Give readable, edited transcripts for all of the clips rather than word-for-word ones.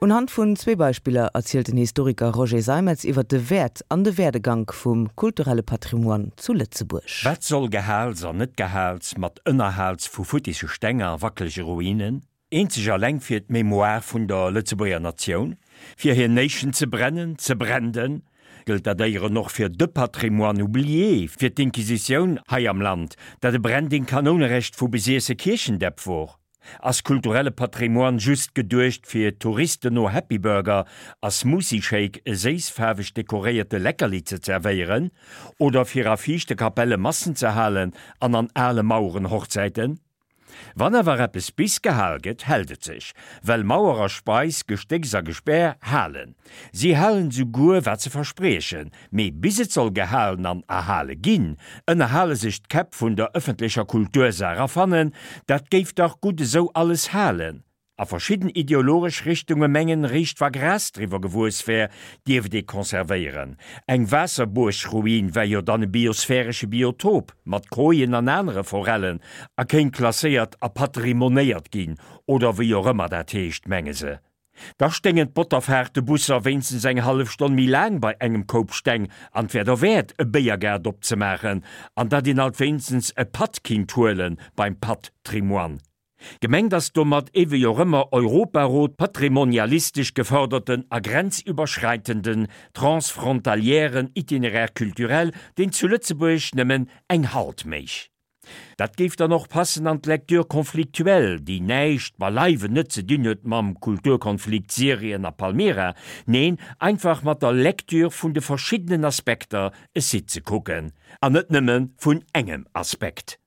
Unhand vun zwee Beispiller erzielt den Historiker Roger Seimetz iwwer de Wäert an de Werdegank vum kulturelle Patrimoine zu Lëtzebuerg. Wat soll Gehaals an Net-Gehaals mat Ënnerhaals vu futtisse Steng a wackelege Ruinen? Eenzeg alleng fir d'Mémoire vun der Lëtzebuerger Natioun, fir hir Nation ze brennen, ze brenden? Gëllt dat éieren och fir de Patrimoine oublié, fir d'Inquisitioun hei am Land, dat e Branding Kanounerecht vu besiesse Kierchendäpp wor? Ass kulturelle Patrimoine just geduecht fir Touristen no Happy Burger a Smoothie Shake e séissfaarweg dekoréierte Leckerli ze zerwéieren? Oder fir a fiichte Kapelle Massen ze halen an an ale Maueren Hochzäiten? Wann awer eppes bis gehal gëtt, hält et sech, well Mauer a Speis, Gestécks a Gespär halen. Si halen souguer wat se verspriechen, mee bis et soll gehalen an erhale ginn, ënnerhale sech d'Käpp vun der ëffentlecher Kultursaach a fannen, dat géif dach gutt esou alles halen. A verschidden ideologesch Richtunge mengen, réischt wa Gras driwwer gewuess wär, dierft ee konservéieren. Eng Waasserbuergruin wär jo dann e biosphäresche Biotop mat Kojen an anere Forellen a kéint klasséiert a patrimonéiert ginn, oder wéi och ëmmer dat heescht, menge se. Da sténgen d'Botterfaartebusser wéinstens eng hallef Stonn méi laang bei engem Koup Steng an 't wär derwäert, e Béiergaart opzemaachen an datt een alt wéinstens e Patt kinnt huele beim Patt-Trimoine. Gemengt ass domat ee wéi och ëmmer Europarot patrimonialistesch gefërderten a grenzüberschreitenden transfrontalièren Itinéraire culturel, deen zu Lëtzebuerg nëmmen eng Halt méich. Dat géif dann och passen an d'Lecture conflictuelle, déi näischt, beileiwen net ze dinn huet mam Kulturkonflikt Syrien a Palmyra, neen, einfach mat der Lecture vun de verschiddenen Aspekter e Site ze kucken, an net nëmme vun engem Aspekt.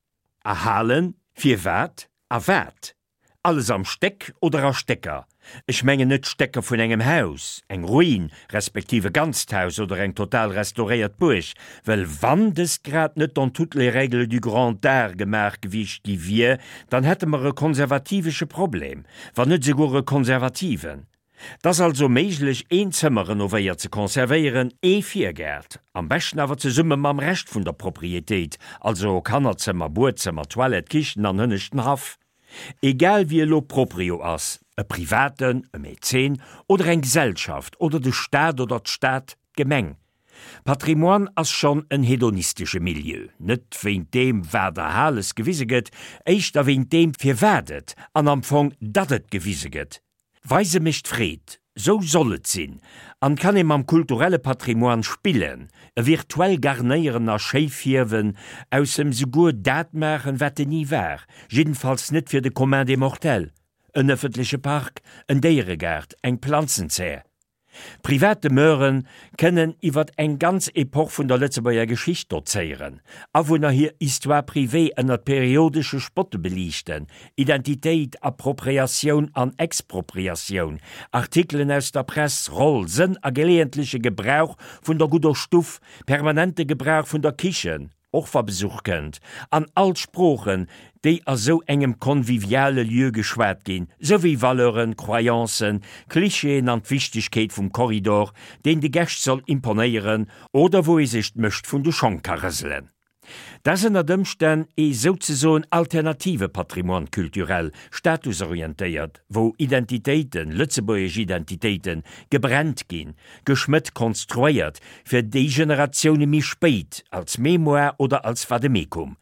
Erhalen, firwat a wat? Alles am Stéck oder a Stécker? Ech mengen net d'Stécker vun engem Haus, eng Ruin, respektiv e ganzt Haus oder eng total restauréiert Buerg, well wann dëst grad net dans toutes les règles du grand art gemaach gewiescht gi wier, dann hätte mer e konservativesche Problem, wann net esouguer e konservativen. 't ass also méiglech een Zëmmer renovéiert ze conservéieren, ee Virgaart, am beschten awer zesumme mam Rescht vun der Proprietéit, also Kannerzëmmer, Buedzëmmer, Toilette, Kichen an hënneschten Haff. Egal wie elo Proprio ass, e Privaten, e Mäzen oder eng Gesellschaft oder de Staat oder d'Stad, d'Gemeng. Patrimoine ass schonn en hedonistesche Milieu, net wéint deem wat erhales gewise gëtt, éischter wéint deem firwat et an am Fong datt et gewise gëtt. Weise mécht Freed, sou soll et sinn, an kann ee mam kulturelle Patrimoine spillen, e virtuell garnéieren a schéi fierwen, aus em souguer dat maachen, wat en ni war, jiddenfalls net fir de commun des mortels, en ëffentleche Park, en Déieregaart, eng Planzenzär. Privat Demeure kënnen iwwer eng ganz Epoch vun der Lëtzebuerger Geschicht dozéieren, Awunner hir Histoire privée ënnert periodesche Spotte beliichten, Identitéit, Appropriatioun an Expropriatioun, Artikelen aus der Press, Roll, Sënn a geleeëntleche Gebrauch vun der gudder Stuff, permanente Gebrauch vun der Kichen, och wa Besuch kënnt, an all d'Sproochen, déi a sou engem conviviale Lieu geschwat ginn, souwéi Valeuren, Croyancen, Klischeeën an d'Wichtegkeet vum Korridor, deen de Gäscht soll imponéieren oder wou ee sech d'Mëscht vun de Schong ka rëselen. Dat ass ënnert Ëmstänn ee souzesoen alternative Patrimoine culturel, statusorientéiert, wou Identitéiten, lëtzebuergesch Identitéiten, gebrennt ginn, geschmëtt, konstruéiert, fir déi Generatioune méi spéit, als Mémoire oder als Vademecum.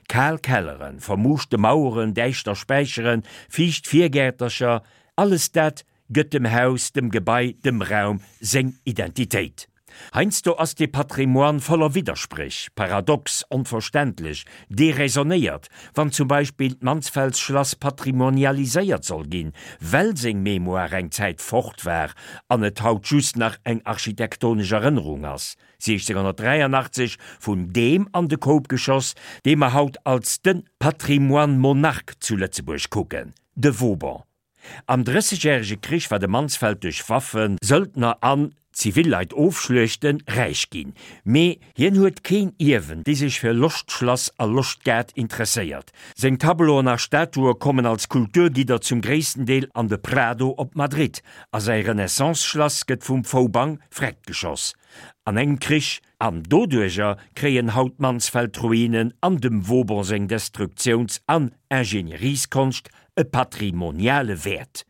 Kal Kelleren, vermuuschte Maueren, däischter Späicheren, fiicht Virgäertercher, alles dat gëtt dem Haus, dem Gebai, dem Raum seng Identitéit. Heiansdo ass dee Patrimoine voller Widderspréch, paradox, onverständlech, deraisonnéiert, wann zum Beispill d'Mansfeldschlass patrimonialiséiert soll ginn, well seng Mémoire eng Zäit fort war an et haut just nach eng architektonesch Erënnerung ass, 1683 vun deem an de Koup geschoss, dee mer haut als de Patrimoine Monarque zu Lëtzebuerg kucken, de Vauban. Am Drëssegjärege Krich war de Mansfeld duerch Waffen, Söldner an Zivilleit ofschluechten, räich ginn. Mee hien huet keen Ierwen, dee sech fir Loschtschlass a Loschtgaart interesséiert. Seng Tableauen a Statue kommen als Kulturgidder zum gréissten Deel an de Prado op Madrid, a säi Renaissance-Schlass gëtt vum Vauban freckgeschoss an engem Krich. An doduerjer kréien haut d'Mansfeld-Ruinen an dem Vauban seng Destruktiouns an Ingenierieskonscht e patrimoniale Wäert.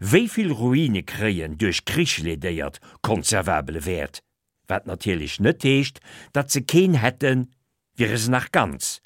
Wéi vill Ruine kréien duerch Krich ledéiert konservabele Wäert? Wat natierlech net heescht, datt se keen hätten, wiere se nach ganz.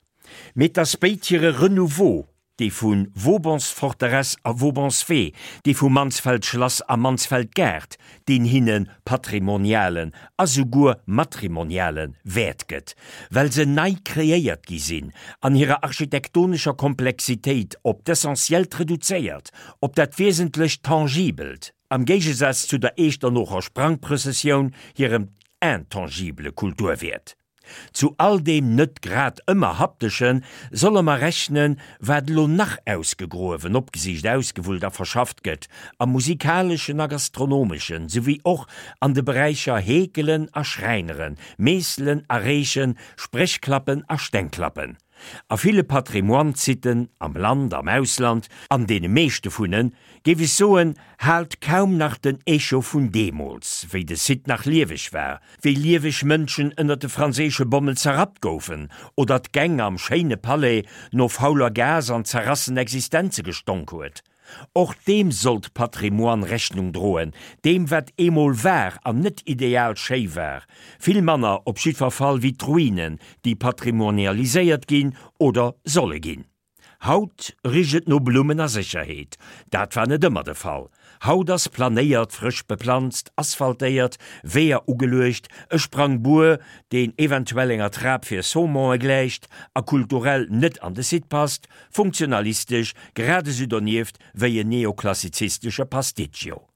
Mee 't ass béid hire Renouveau, dee vu Vaubansforteresse a Vaubanswee, dee vu Mansfeld-Schlass a Mansfeld-Gaart, deen hinne patrimonialen a souguer matrimoniale Wäert gëtt, well se nei kreéiert gi sinn, an hirer architektonescher Komplexitéit op d'Essentiellt reduzéiert, op dat wiesentlech Tangibelt, am Géigesaz zu der Eechternocher Sprangprëssessioun hirem intangibele Kulturwäert. Zu all deem net grad ëmmer Hapteschen solle mer rechnen, wat elo nach ausgegruewen, opgesicht, ausgewullt a verschafft gëtt, am musikaleschen a gastronomeschen, souwéi och an de Beräicher Heekelen a Schräineren, Meesselen a Reechen, Spréchklappen a Stengklappen. A ville Patrimoine-Siten, am Land, am Ausland, an deene meeschte vun en, géif ech soen, haalt kaum nach den Echo vun deemools, wéi de Site nach lieweg war, wéi lieweg Mënschen ënner de franséische Bommen zerrappt goufen oder d'Gäng am schéine Palais no fauler Gas an zerrassen Existenze gestonk huet. Och deem sollt Patrimoine Rechnung droen, deem wat eemol war an net ideal schéi war, vill manner op jiddwer Fall wéi d'Ruinen, déi patrimonialiséiert ginn oder solle ginn. Haut richt et no Blummen a Sécherheet. Dat war net ëmmer de Fall. Haut ass planéiert, frësch beplanzt, asphaltéiert, Weeër ugeluecht, e Sprangbuer, deen eventuell enger Trap fir Saumonë gläicht a kulturell net an de Site passt, funktionalistesch grad esou donieft wéi en neoklassizistesche Pasticcio.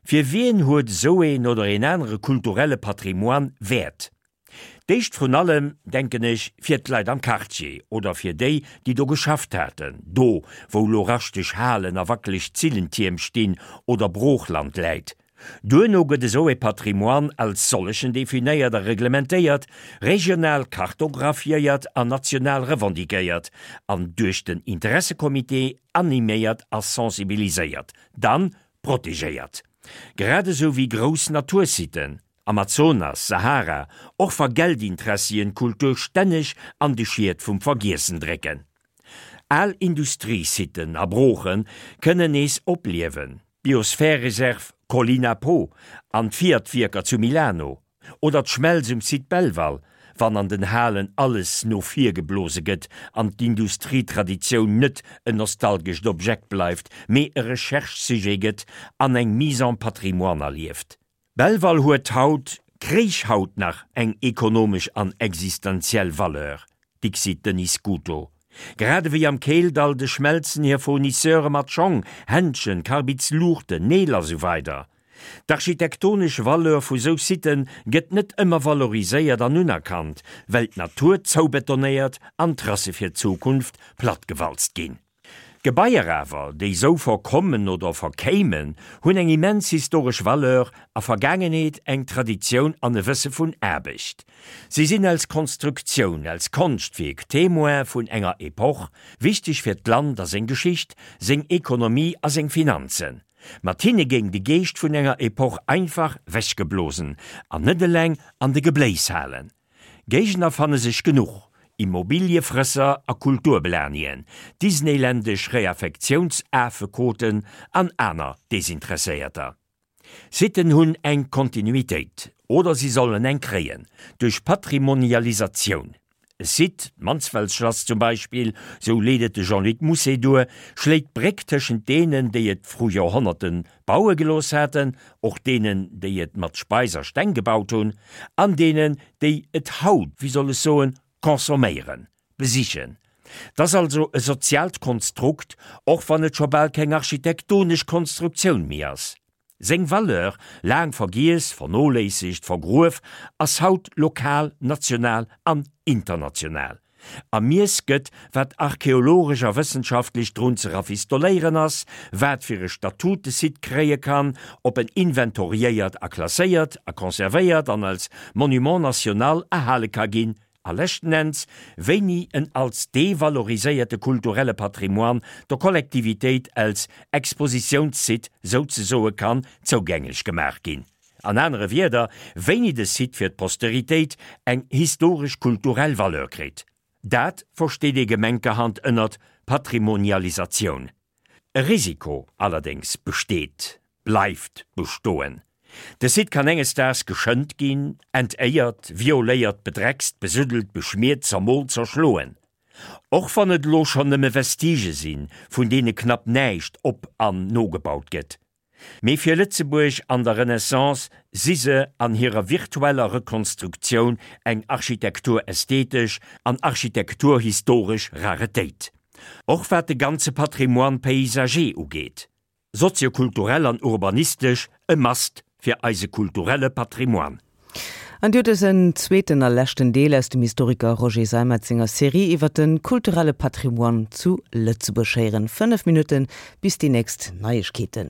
Fir wien huet esou een oder een anere kulturelle Patrimoine Wäert? D'éischt vrun allem, denken ech, fir d'Leit am Quartier oder fir déi, déi do geschafft haten, do, wou lo raschteg Halen a wackeleg Zillentierm stinn oder Broochland läit. Duerno gëtt esou e Patrimoine als sollechen definéiert a reglementéiert, regional kartographiéiert an national revendiquéiert an duerch den Interessecomité animéiert a sensibiliséiert, dann protegéiert. Grad esou wéi grouss Natursiten, Amazonas, Sahara, och wa Geldinteressien d'Kultur stänneg an de Schiet vum Vergiessen drécken. Al Industriesiten a Brooche kënnen nees opliewen, d'Biosphärereserv Collina Po an d'Fiat-Wierker zu Milano, Oder d'Schmelz um Site Belval, wann an den Halen alles no vir geblose gëtt an d'Industrietraditioun net en nostalgescht Objekt bleift, mee e Recherche-Sujet gëtt an eng Mise en patrimoine erlieft. Belval huet haut, kréich haut nach eng ekonomesch an existenziell Valeur, dixit Denis Scuto. Grad ewéi am Keeldall de Schmelzen hir Fournisseure mat Schong, Händschen, Karbidsluuchten, Neel a sou weider. D'architektonesch Valeur vu sou Sitë gëtt net ëmmer valoriséiert an unerkannt, well d'Natur zoubetonéiert an d'Trasse fir d'Zukunft plattgewalzt ginn. Gebaier awer, déi sou verkommen oder verkéimen, hunn eng immens historesch Valeur a Vergaangenheet, eng Traditioun an e Wësse vun Aarbecht. Si sinn als Konstruktioun, als Konschtwierk Témoin vun enger Epoch, wichteg fir d'Land a seng Geschicht, seng Ekonomie a seng Finanzen. Mat hinne géing de Geescht vun enger Epoch einfach wechgeblosen an net eleng an de Gebléis halen. Géigner fanne sech genuch, Immobiliefrësser a Kulturblanien, disneyländesch Reaffektiounsaafekoten an aner Desinteresséierter. Sitten hunn eng Kontinuitéit, oder si sollen eng kréien, duerch Patrimonialisatioun. E Site, d'Mansfeldschlass zum Beispill, sou leet et de Jean-Luc Mousset duer, schléit d'Bréck tëschent deenen, déi et vru Joerhonnerte baue gelooss haten, och deenen, déi et mat Speis a Steng gebaut hunn, an deenen, déi et haut, wéi soll ech soen, consomméieren, besichen. 't ass also e soziaalt Konstrukt, och wann et scho bal keng architektonesch Konstruktioun méi ass. Seng Valeur, laang vergiess, vernoléissegt, vergruef, ass haut lokal, national an international. Ermiess gëtt, wat archeologesch a wëssenschaftlech drun ze rafistoléieren ass, wat fir e Statut de Site kréie kann, ob en inventoriéiert a klasséiert a conservéiert an als Monument national erhale ka ginn, A leschten Enns, wéini en als devaloriséierte kulturelle Patrimoine der Kollektivitéit als Expositiounssite souzesoe kann zougänglech gemaach ginn. An anere Wierder, wéini de Site fir d'Posteritéit eng historesch-kulturell Valeur kritt. Dat versteet ee gemenkerhand ënnert Patrimonialisatioun. E Risiko allerdéngs besteet, bleift bestoen, De Site kann enges Daags geschënnt ginn, entéiert, violéiert, bedreckst, besuddelt, beschmiert, zermoolt, zerschloen. Och wann et elo schonn nëmme Vestigë sinn, vun deene knapp näischt op an nogebaut gëtt. Mee fir Lëtzebuerg an der Renaissance si se an hirer virtueller Rekonstruktioun eng architekturästhetesch an architekturhistoresch Raretéit. Och wat de ganze Patrimoine paysager ugeet. Soziokulturell an urbanistesch e Must fir eise kulturelle Patrimoine. An Dir hutt dësen zweeten a leschten Deel aus dem Historiker Roger Seimetz senger Serie iwwer de kulturelle Patrimoine zu Lëtzebuerg héieren. 5 Minutte bis déi nächst Neiegkeeten.